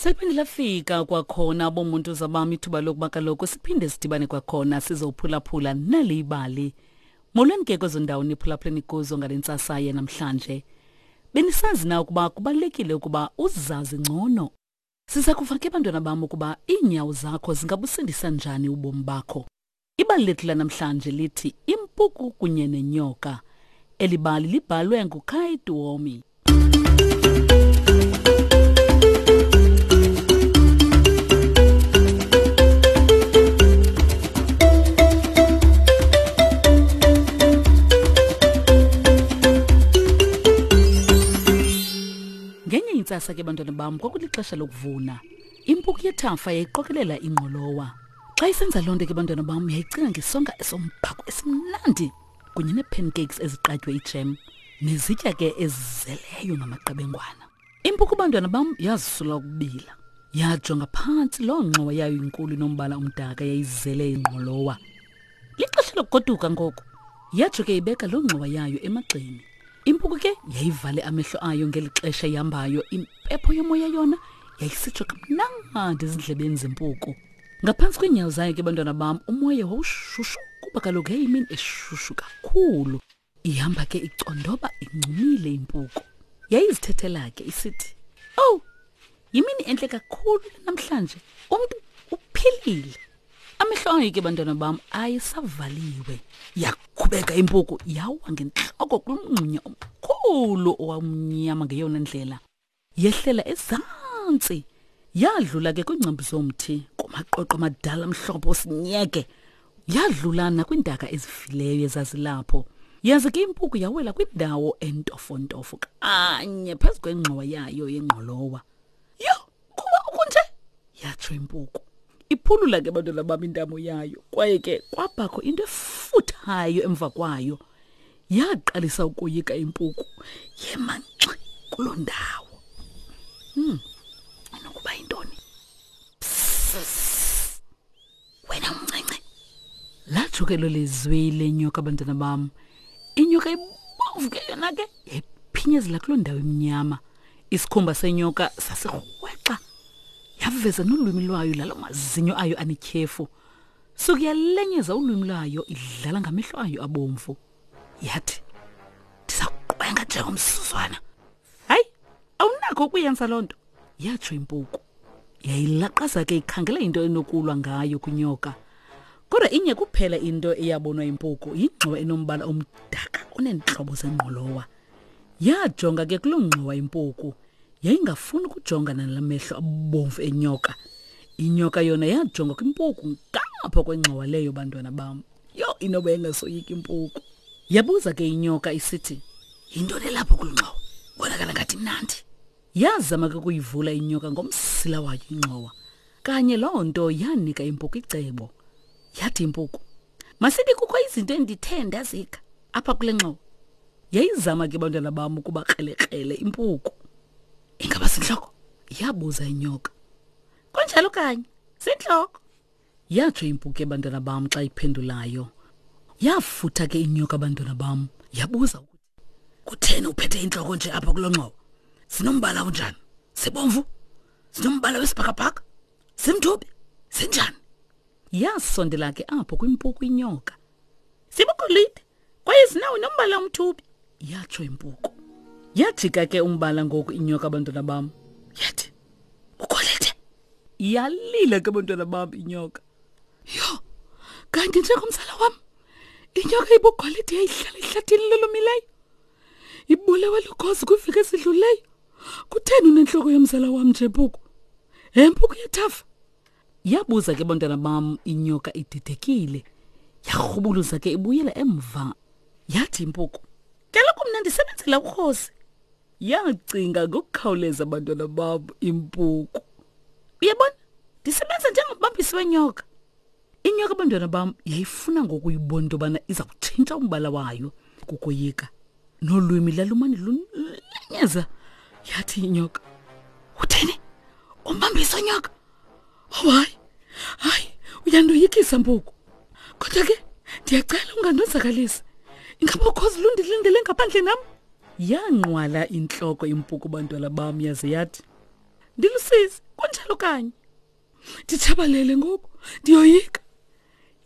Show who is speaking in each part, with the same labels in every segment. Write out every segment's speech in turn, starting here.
Speaker 1: Seliphinde lafika kwakhona bomuntu zabam ithuba lokuba kaloku siphinde sidibane kwakhona sizophulaphula nali ibali. Molweni ke kwezo ndawo niphulaphuleni kuzo ngale ntsasa yanamhlanje. Benisazi na ukuba kubalulekile ukuba uzazi ngcono? Siza kuva ke bantwana bam ukuba iinyawo zakho zingabusindisa njani ubomi bakho. Ibali lethu lanamhlanje lithi Impuku kunye nenyoka. Eli bali libhalwe nguKai Tuomi. Ngenye intsasa ke bantwana bam kwakulixesha lokuvuna. Impuku yethafa yayiqokelela ingqolowa. Xa isenza loo nto ke bantwana bam yayicinga ngesonka esombhako esimnandi kunye nee-pancakes eziqatywe ijem nezitya ke ezizeleyo ngamaqebengwana. Impuku bantwana bam yazisula ukubila. Yajonga phantsi loo ngxowa yayo inkulu inombala omdaka yayizele ingqolowa. Lixesha lokugoduka ngoku. Yatsho ke ibeka loo ngxowa yayo emagxeni. Impuku ke yayivale amehlo ayo ngeli xesha ihambayo, impepho yomoya yona yayisitsho kamnandi ezindlebeni zempuku. Ngaphantsi kweenyawo zayo ke bantwana bam umoya wawushushu kuba kaloku yayimini eshushu kakhulu. Ihamba ke icondoba incumile impuku. Yayizithethela ke isithi, "Oh, yimini entle kakhulu namhlanje. Umntu uphilile." Amehlo ayo ke bantwana bam ayesavaliwe. Yakhubeka impuku yawa ngentloko kulomngxunya omkhulu owamnyama ngeyona ndlela. Yehlela ezantsi yadlula ke kwiingcambu zomthi kumaqoqo amadala amhlophe osinyeke yadlula nakwiintaka ezifileyo ezazilapho yaze ke impuku yawela kwindawo entofontofo kanye phezu kwengxowa yayo yengqolowa yho kuba ukunje yatsho impuku iphulula ke bantwana bam intamo yayo kwaye ke kwabakho into efuthayo emva kwayo yaqalisa ukoyika impuku yema nxi kuloo ndawo hmm inokuba yintoni wena umncinci latsho ke lo lizwi lenyoka abantwana bam inyoka ibomvu ke yona ke yayiphinyezela kuloo ndawo imnyama isikhumba senyoka sasirhwexa yaveza nolwimi lwayo lalo mazinyo ayo anetyhefu suke yalenyeza ulwimi lwayo idlala ngamehlo ayo abomvu yathi ndiza kuqwenga njengomsuzwana hayi awunakho ukuyenza loo nto yatsho impuku yayilaqaza ke ikhangela into enokulwa ngayo kwinyoka kodwa inye kuphela into eyabonwa impuku yingxowa enombala omdaka oneentlobo zengqolowa yajonga ke kuloo ngxowa impuku yayingafuni ukujongana nala mehlo abomvu enyoka inyoka yona yajonga kwimpuku ngapha kwengxowa leyo bantwana bam yho inoba engasoyiki impuku yabuza ke inyoka isithi yintoni elapho kulu ngxowa bonakala ngathi mnandi yazama ke ukuyivula inyoka ngomsila wayo ingxowa kanye loo nto yanika impuku icebo yathi impuku masithi kukho izinto endithe ndazika apha kule ngxowa yayizama ke bantwana bam ukuba krelekrele impuku ingaba sintloko yabuza inyoka kunjalo kanye sintloko yatsho impuku ebantwana bam xa iphendulayo yafutha ke inyoka abantwana bam yabuza ukuthi kutheni uphethe intloko nje apha kulo ngxowa sinombala unjani sibomvu sinombala wesibhakabhaka simthubi sinjani yasondela ke apho kwimpuku inyoka sibugolide kwaye zinawo nombala omthubi yatsho impuku yajika ke umbala ngoku inyoka abantwana bam yathi ugolide yalila ke abantwana bam inyoka yho kanti njengomzala wam inyoka ibugolide yayihlala ehlathini lolomileyo ibulewe lukhozi kwiveki ezidluleyo kutheni unentloko yomzala wam nje mpuku he mpuku yethafa Yabuza ke bantwana bam inyoka ididekile. Yarhubuluza ke ibuyela emva. Yathi impuku, "Kaloku mna ndisebenzela urhosi." Yacinga ngokukhawuleza bantwana bam impuku. Uyabona, ndisebenza njengombambisi wenyoka. Inyoka bantwana bam yayifuna ngokuyibona into yobana iza kutshintsha umbala wayo kukoyika. Nolwimi lalumane lulenyeza. Yathi inyoka, "Uthini? Umbambisi wenyoka?" Oh hayi, hayi, uyandoyikisa mpuku. Kodwa ke ndiyacela ungandonzakalisi. Ingaba ukhozi lundilindele ngaphandle nam? Yanqwala intloko impuku bantwana bam yaze yathi, Ndilusizi, kunjalo. Kunjalo kanye. Nditshabalele ngoku, ndiyoyika.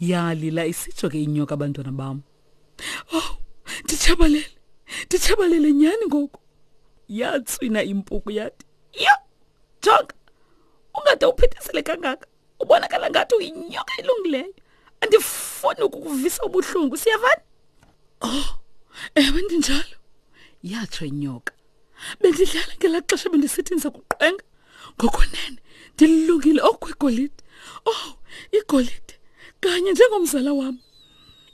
Speaker 1: Yalila isitsho ke inyoka abantwana bam. Oh, nditshabalele. Nditshabalele nyhani ngoku. Yatswina impuku yathi, "Yho, jonga. Ungade uphithizele kangaka. Ubonakala ngathi uyinyoka elungileyo. Andifuni ukukuvisa ubuhlungu, siyavana?" Oh, ewe ndinjalo. Yatsho inyoka. Bendidlala ngelaa xesha bendisithi ndiza kuqwenga. Ngokunene ndilungile okwegolide. Oh, igolide kanye njengomzala wam.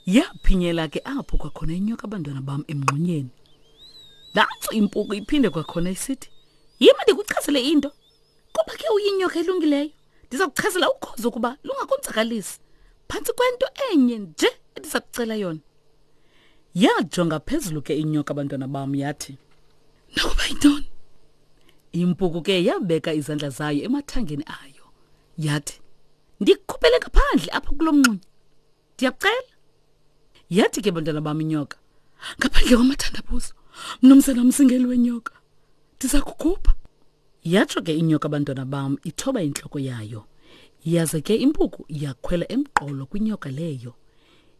Speaker 1: Yaphinyela ke apho kwakhona inyoka abantwana bam emngxunyeni. Nantso impuku iphinde kwakhona isithi, "Yima ndikuchazele into. Kuba ke uyinyoka elungileyo, ndiza kuchazela ukhozi ukuba lungakonzakalisi. Phantsi kwento enye nje endiza kucela yona." Yajonga phezulu ke inyoka abantwana bam yathi, "Nokuba yintoni?" Impuku ke yabeka izandla zayo emathangeni ayo. Yathi, "Ndikukhuphele ngaphandle apha kulo mngxunya. Ndiyakucela." Yathi ke bantwana bam inyoka, "Ngaphandle kwamathandabuzo, mnumzana mzingeli wenyoka, ndiza kukhupha." Yatsho ke inyoka abantwana bam ithoba intloko yayo. Yaze ke impuku yakhwela emqolo kwinyoka leyo.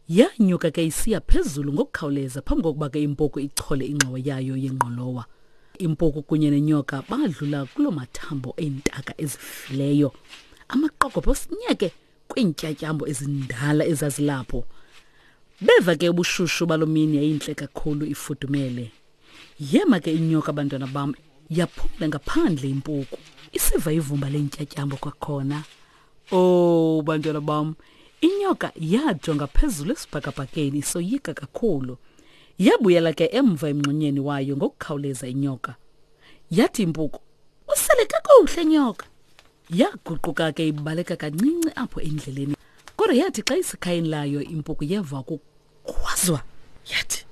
Speaker 1: Yanyuka ke isiya phezulu ngokukhawuleza phambi kokuba ke impuku ichole ingxowa yayo yengqolowa. Impuku kunye nenyoka badlula kuloo mathambo eentaka ezifileyo. Amaqokobhe osinyeke kwiintyatyambo ezindala ezazilapho. Beva ke ubushushu baloo mini yayintle kakhulu ifudumele. Yema ke inyoka bantwana bam yaphumla ngaphandle impuku isiva ivumba leentyatyambo kwakhona. Oh bantwana bam, inyoka yajonga phezulu esibhakabhakeni isoyika kakhulu. Yabuyela ke emva emngxunyeni wayo ngokukhawuleza inyoka. Yathi impuku, "Usele kakuhle nyoka." Yaguquka ke ibaleka kancinci apho endleleni. Kodwa yathi xa isekhayeni layo impuku yeva ukukhwazwa yathi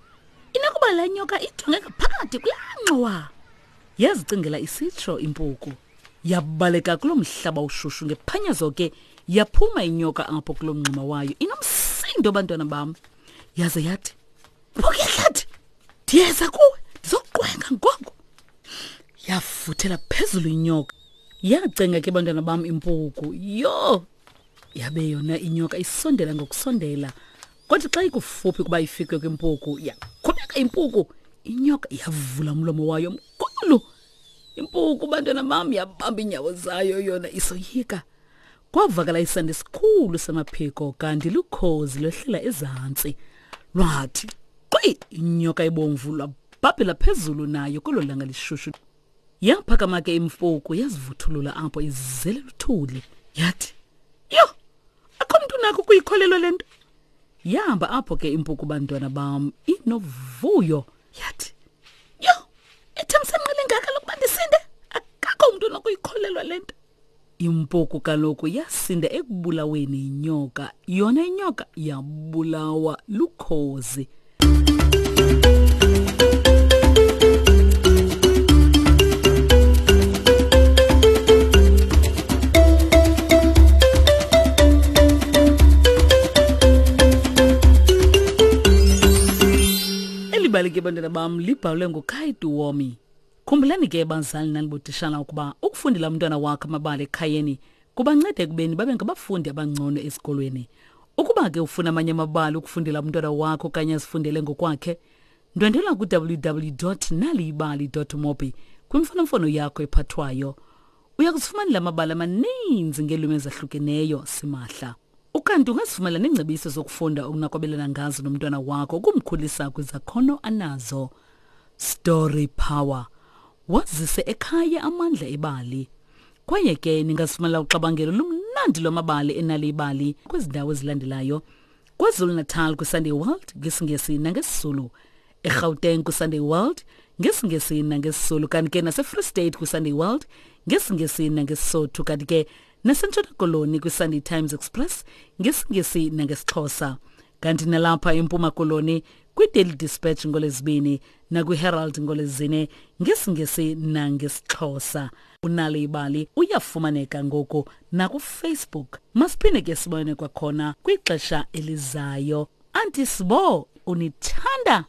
Speaker 1: inokuba le nyoka ijonge ngaphakathi kulaa ngxowa. Yazicingela isitsho impuku. Yabaleka kuloo mhlaba ushushu ngephanyazo ke yaphuma inyoka apho kuloo mngxuma wayo inomsindo bantwana bam. Yaze yathi, Mpuku yehlathi, ndiyeza kuwe ndizokuqwenga ngoku. Yafuthela phezulu inyoka. Yacenga ke bantwana bam impuku. Yho! Yabe yona inyoka isondela ngokusondela. Kodwa xa ikufuphi ukuba ifike kwimpuku, yakhubeka impuku. Inyoka yavula umlomo wayo mkhulu. Impuku bantwana bam yabamba iinyawo zayo yona isoyika. Kwavakala isandi esikhulu samaphiko kanti lukhozi lwehlela ezantsi. Lwathi qwi inyoka ebomvu lwabhabhela phezulu nayo kwelo langa lishushu. Yaphakama ke imfuku yazivuthulula apho izele luthuli. Yathi, "Yho, akho mntu unakho ukuyikholelwa le nto." Yahamba apho ke impuku bantwana bam inovuyo. Yathi, "Yho, ithemsanqa lingaka lokuba ndisinde. Akakho umntu onokuyikholelwa le nto." Impuku kaloku yasinda ekubulaweni yinyoka, yona inyoka yabulawa lukhozi. Eli bali ke bantwana bam libhalwe nguKaidu Womi. Khumbulani ke bazali nanibotishala ukuba ukufundela umntwana wakho amabali ekhayeni kubanceda ekubeni babe ngabafundi abangcono esikolweni. Ukuba ke ufuna amanye amabali ukufundela umntwana wakho okanye azifundele ngokwakhe, ndwendwela ku-www.naliyibali.mobi kwimfonomfono yakho ephathwayo. Uya kuzifumanela amabali amaninzi ngeelwimi ezahlukeneyo simahla. Ukanti ungazifumana neengcebiso zokufunda okunakwabelana ngazo nomntwana wakho ukumkhulisa kwizakhono anazo. Story Power. Wazise ekhaya amandla ebali. Kwaye ke ningazifumana uxabangelo lumnandi lwamabali enali ibali kwezi ndawo ezilandelayo. KwaZulu-Natal kwiSunday World ngesiNgesi nangesiZulu. eGauteng kwiSunday World ngesiNgesi nangesizulu kanti ke naseFree State kwiSunday World ngesiNgesi nangesisotho kanti ke naseNtshona Koloni kwiSunday Times Express ngesiNgesi nangesixhosa kanti nalapha eMpuma Koloni kwiDaily Dispatch ngolezibini nakwiHerald ngolezine ngesiNgesi nangesixhosa unalo ibali uyafumaneka ngoku nakufacebook masiphinde ke sibone kwakhona kwixesha elizayo Auntie Sbo unithanda.